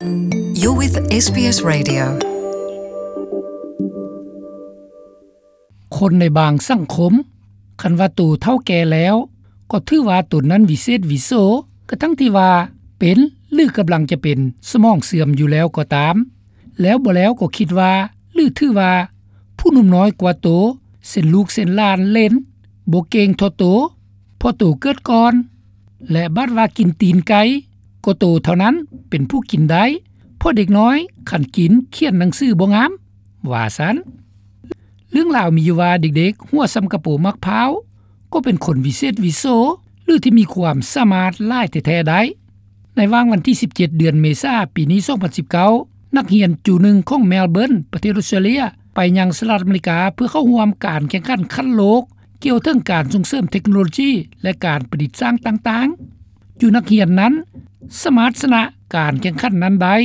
You're with ເອສ ບີ ເອສ Radio. ຄົນໃນບາງສັງຄົມ ຄັນວ່າໂຕເຖົ້າແກ່ແລ້ວ ກໍຖືວ່າຕົນນັ້ນວິເສດວິໂສ ກະທັງທີ່ວ່າເປັນ ຫຼື ກຳລັງຈະເປັນສະໝອງເສື່ອມຢູ່ແລ້ວກໍຕາມ. ແລ້ວບໍ່ແລ້ວກໍຄິດວ່າ ຫຼື ຖືວ່າ ຜູ້ໜຸ່ມນ້ອຍກວ່າໂຕ ເຊັ່ນລູກເຊັ່ນຫຼານເຫຼັ້ນ ບໍ່ເກັ່ງທໍ່ໂຕ ເພາະໂຕເກີດກ່ອນ ແລະ ບາດວ່າກິນຕີນໄກ່ ກໍໂຕເທົ່ານັ້ນເປັນຜູ້ກິນໄດ້ ເພາະເດັກນ້ອຍຄັນກິນຂຽນໜັງສືບໍ່ງາມ ວ່າຊັ້ນ. ເລື່ອງລາວມີຢູ່ວ່າເດັກໆ ຫົວສ່ຳກະໂປໝາກພ້າວ ກໍເປັນຄົນວິເສດວິໂສ ຫຼື ທີ່ມີຄວາມສາມາດຫຼາຍແທ້ໆໄດ້. ໃນຫວ່າງວັນທີສິບເຈັດ ເດືອນເມສາ ປີນີ້ ສອງພັນສິບເກົ້າ ນັກຮຽນຈູໜຶ່ງຂອງແມລເບີນ ປະເທດອົດສະຕຣາເລຍ ໄປຍັງສະຫະລັດອາເມລິກາ ເພື່ອເຂົ້າຮ່ວມການແຂ່ງຂັນຂັ້ນໂລກ ກ່ຽວເຖິງການສົ່ງເສີມເທັກໂນໂລຈີ ແລະ ການປະດິດສ້າງຕ່າງໆ. ຈູນັກຮຽນນັ້ນສາມາດຊະນະການແຂ່ງຂັນນັ້ນໄດ້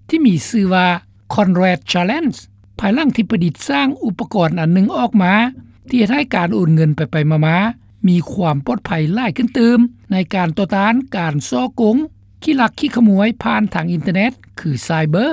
ທີ່ມີຊື່ວ່າ Conrad Challenge ພາຍຫຼັງທີ່ປະດິດສ້າງອຸປະກອນອັນໜຶ່ງອອກມາ ທີ່ເຮັດໃຫ້ການໂອນເງິນໄປໆມາໆ ມີຄວາມປອດໄພຫຼາຍຂຶ້ນຕື່ມ ໃນການຕໍ່ຕ້ານການສໍ້ໂກງ ຂີ້ລັກຂີ້ຂະໂມຍຜ່ານທາງອິນເຕີເນັດ ຄື cyber.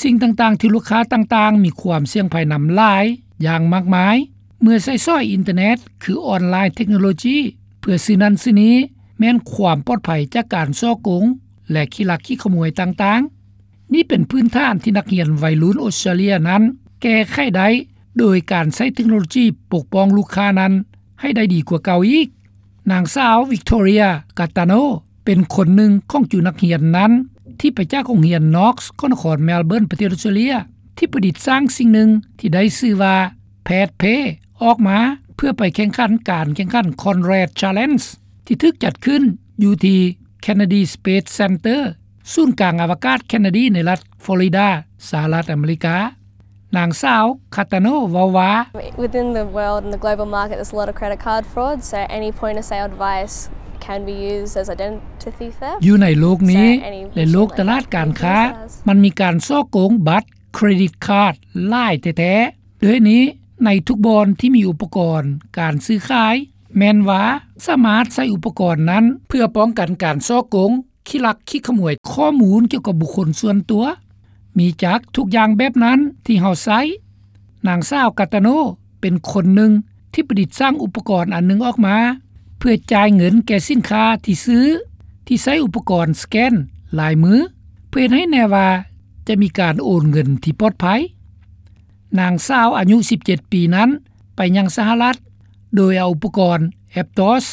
ສິ່ງຕ່າງໆທີ່ລູກຄ້າຕ່າງໆມີຄວາມສ່ຽງໄພນຳຫຼາຍຢ່າງມາກມາຍ ເມື່ອໃຊ້ສອຍອິນເຕີເນັດ ຄື ອອນລາຍເທັກໂນໂລຈີ ເພື່ອຊື້ນັ້ນຊື້ນີ້ ແມ່ນຄວາມປອດໄພຈາກການສໍ້ໂກງ ແລະ ຂີ້ລັກຂີ້ຂະໂມຍຕ່າງໆ. ນີ້ເປັນພື້ນຖານທີ່ນັກຮຽນໄວລຸ້ນອົດສະຕຣາເລຍນັ້ນ ແກ້ໄຂໄດ້ໂດຍການໃຊ້ເທັກໂນໂລຈີປົກປ້ອງລູກຄ້ານັ້ນໃຫ້ໄດ້ດີກວ່າເກົ່າອີກ. ນາງສາວ Victoria Gaetano ເປັນຄົນໜຶ່ງຂອງຈູນັກຮຽນນັ້ນ ທີ່ໄປຈາກໂຮງຮຽນ Knox ຂອງນະຄອນແມລເບີນ ປະເທດອົດສະຕຣາເລຍ ທີ່ປະດິດສ້າງສິ່ງໜຶ່ງທີ່ໄດ້ຊື່ວ່າ Pad Pay ອອກມາ ເພື່ອໄປແຂ່ງຂັນການແຂ່ງຂັນ Conrad Challenge ທີ່ຖືກຈັດຂຶ້ນຢູ່ທີ່ Kennedy Space Center ສູນກາງອະວະກາດ Kennedy ໃນລັດ Florida ສະຫະລັດອາເມລິກາ. ນາງສາວ Gaetano ເວົ້າວ່າ Within the world and the global market, there's a lot of credit card fraud, so any point of sale device can be used as identity theft. ຢູ່ໃນໂລກນີ້ ແລະ ໂລກຕະຫຼາດການຄ້າ ມັນມີການສໍ້ໂກງບັດເຄຣດິດຄາດຫຼາຍແທ້ໆ. ດ້ວຍນີ້ ໃນທຸກບ່ອນທີ່ມີອຸປະກອນການຊື້ຂາຍ ແມ່ນວ່າສາມາດໃຊ້ອຸປະກອນນັ້ນ ເພື່ອປ້ອງກັນການສໍ້ໂກງ ຂີ້ລັກຂີ້ຂະໂມຍຂໍ້ມູນກ່ຽວກັບບຸກຄົນສ່ວນຕົວ ມີຈັກທຸກຢ່າງແບບນັ້ນທີ່ເຮົາໃຊ້. ນາງສາວ Gaetano ເປັນຄົນໜຶ່ງທີ່ປະດິດສ້າງອຸປະກອນອັນໜຶ່ງອອກມາ ເພື່ອຈ່າຍເງິນແກ່ສິນຄ້າທີ່ຊື້ ທີ່ໃຊ້ອຸປະກອນສະແກນລາຍມື ເພື່ອເຮັດໃຫ້ແນ່ວ່າຈະມີການໂອນເງິນທີ່ປອດໄພ. ນາງສາວອາຍຸສິບເຈັດປີນັ້ນ ໄປຍັງສະຫະລັດ ໂດຍເອົາອຸປະກອນ Aptos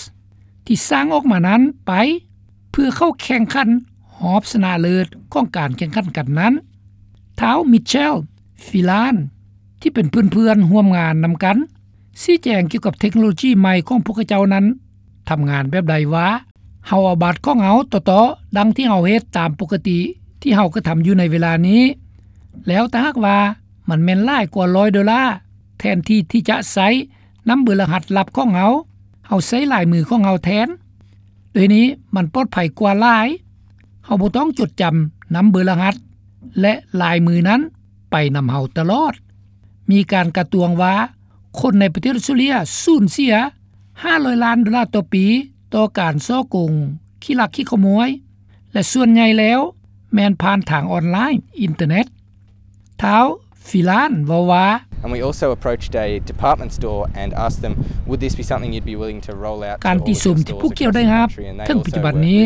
ທີ່ສ້າງອອກມານັ້ນໄປ ເພື່ອເຂົ້າແຂ່ງຂັນຮອບຊະນະເລີດຂອງການແຂ່ງຂັນກັນນັ້ນ. ທ້າວ Michel Filan ທີ່ເປັນເພື່ອນໆຮ່ວມງານນຳກັນ ຊີ້ແຈງກ່ຽວກັບເທັກໂນໂລຈີໃໝ່ຂອງພວກເຂົາເຈົ້ານັ້ນ ທຳງານແບບໃດວ່າ ເຮົາເອົາບັດຂອງເຮົາຕໍ່ໆ ດັ່ງທີ່ເຮົາເຮັດຕາມປົກກະຕິທີ່ເຮົາກະທຳຢູ່ໃນເວລານີ້ ແລ້ວຖ້າຫາກວ່າມັນແມ່ນຫຼາຍກວ່າຮ້ອຍໂດລາ ແທນທີ່ທີ່ຈະໃຊ້ນຳເບີລະຫັດລັບຂອງເຮົາ ເຮົາໃຊ້ລາຍມືຂອງເຮົາແທນ. ໂດຍນີ້ມັນປອດໄພກວ່າຫຼາຍ. ເຮົາບໍ່ຕ້ອງຈົດຈຳນຳເບີລະຫັດ ແລະ ລາຍມືນັ້ນໄປນຳເຮົາຕະຫຼອດ. ມີການກະຕວງວ່າ ຄົນໃນປະເທດອົດສະຕຣາເລຍສູນເສຍຫ້າຮ້ອຍລ້ານໂດລາຕໍ່ປີ ຕໍ່ການສໍ້ໂກງ ຂີ້ລັກຂີ້ຂະໂມຍ ແລະ ສ່ວນໃຫຍ່ແລ້ວແມ່ນຜ່ານທາງອອນລາຍ ອິນເຕີເນັດ. ທ້າວ Filan ເວົ້າວ່າ And we also approached a department store and asked them, would this be something you'd be willing to roll out to all of your stores across the country? ການຕິຊົມທີ່ພວກເຈົ້າໄດ້ຮັບເຖິງປັດຈຸບັນນີ້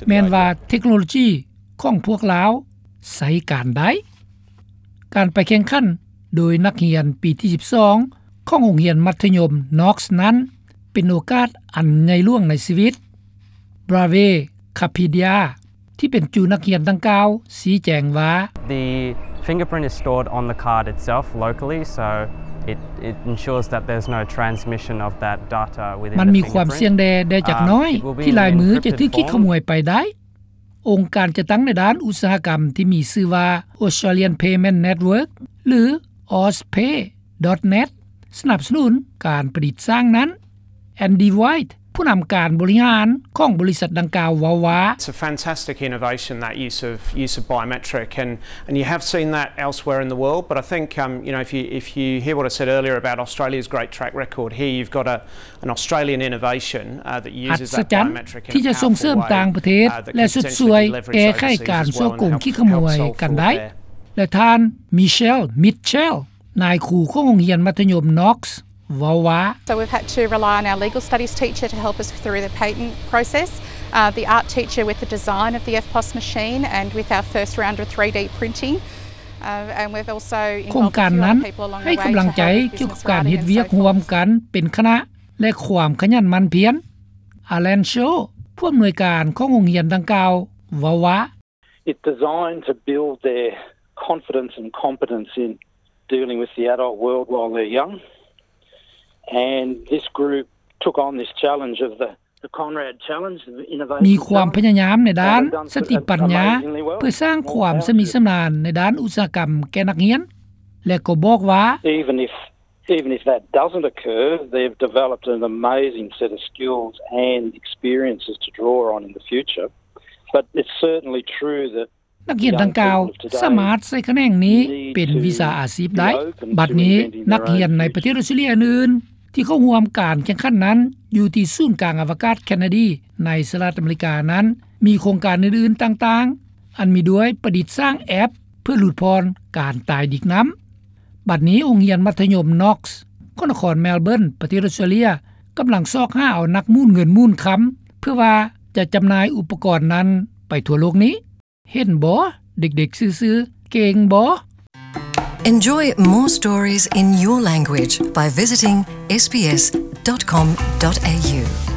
ແມ່ນວ່າເທັກໂນໂລຈີຂອງພວກລາວໃຊ້ການໄດ້. ການໄປແຂ່ງຂັນໂດຍນັກຮຽນປີທີສິບສອງຂອງໂຮງຮຽນມັດທະຍົມ Knox ນັ້ນ ເປັນໂອກາດອັນໃຫຍ່ຫຼວງໃນຊີວິດ. Brave Kapadia ທີ່ເປັນຈູນັກຮຽນດັ່ງກ່າວຊີ້ແຈງວ່າ The fingerprint is stored on the card itself locally, so it, it ensures that there's no transmission of that data within the fingerprint. ມັນມີຄວາມສ່ຽງແດ່ ແດ່ຈັກໜ້ອຍ ທີ່ລາຍມືຈະຖືກຂີ້ຂະໂມຍໄປໄດ້. ອົງການຈັດຕັ້ງໃນດ້ານອຸດສາຫະກຳທີ່ມີຊື່ວ່າ Australian Payment Network ຫຼື AusPay.net ສະໜັບສະໜູນການປະດິດສ້າງນັ້ນ. Andy White ຜູ້ນຳການບໍລິຫານຂອງບໍລິສັດດັ່ງກ່າວເວົ້າວ່າ It's a fantastic innovation, that use of, use of biometric, and, and you have seen that elsewhere in the world, but I think, um, you know, if you, if you hear what I said earlier about Australia's great track record, here you've got a, an Australian innovation, uh, that uses that biometric in a powerful way, uh, that could potentially be leveraged overseas as well and help solve their ອັດສະຈັນທີ່ຈະສົ່ງເສີມຕ່າງປະເທດ ແລະ ຊຸດຊ່ວຍແກ້ໄຂການສໍ້ໂກງ ຂີ້ຂະໂມຍກັນໄດ້. ແລະ ທ່ານ Michelle Mitchell ນາຍຄູຂອງໂຮງຮຽນມັດທະຍົມ Knox ເວົ້າວ່າ So we've had to rely on our legal studies teacher to help us through the patent process, uh, the art teacher with the design of the EFTPOS machine and with our first round of three D printing. Uh, and we've also involved a few other people along the way to help us with our development. ໂຄງການນັ້ນໃຫ້ກຳລັງໃຈກ່ຽວກັບການເຮັດວຽກຮ່ວມກັນເປັນຄະນະ ແລະ ຄວາມຂະຫຍັນໝັ່ນພຽນ. Alan Shaw ຜູ້ອຳນວຍການຂອງໂຮງຮຽນດັ່ງກ່າວ ເວົ້າວ່າ It's designed to build their confidence and competence in dealing with the adult world while they're young. And this group took on this challenge of the, the Conrad Challenge, the innovation challenge. ມີຄວາມພະຍາຍາມໃນດ້ານສະຕິປັນຍາ ເພື່ອສ້າງຄວາມຊຳນິຊຳນານໃນດ້ານອຸດສາຫະກຳແກ່ນັກຮຽນ ແລະ ກໍບອກວ່າ Even if, even if that doesn't occur, they've developed an amazing set of skills and experiences to draw on in the future. But it's certainly true that ນັກຮຽນດັ່ງກ່າວສາມາດໃຊ້ຂະແໜງນີ້ເປັນວິຊາອາຊີບໄດ້. ບັດນີ້ນັກຮຽນໃນປະເທດອອສເຕຣເລັຍອື່ນໆ ທີ່ເຂົ້າຮ່ວມການແຂ່ງຂັນນັ້ນ ຢູ່ທີ່ສູນກາງອະວະກາດ Kennedy ໃນສະຫະລັດອາເມລິການັ້ນ ມີໂຄງການອື່ນໆຕ່າງໆ ອັນມີດ້ວຍປະດິດສ້າງແອັບເພື່ອຫຼຸດຜ່ອນການຕາຍດິກນ້ຳ. ບັດນີ້ໂຮງຮຽນມັດທະຍົມ Knox ຂອງນະຄອນ Melbourne ປະເທດອອສເຕຣເລັຍ ກຳລັງຊອກຫາເອົານັກໝູນເງິນໝູນຄຳ ເພື່ອວ່າຈະຈຳໜ່າຍອຸປະກອນນັ້ນໄປທົ່ວໂລກນີ້. ເຫັນບໍ່? ເດັກໆຊື່ໆ ເກັ່ງບໍ່? Enjoy more stories in your language by visiting S B S dot com dot A U.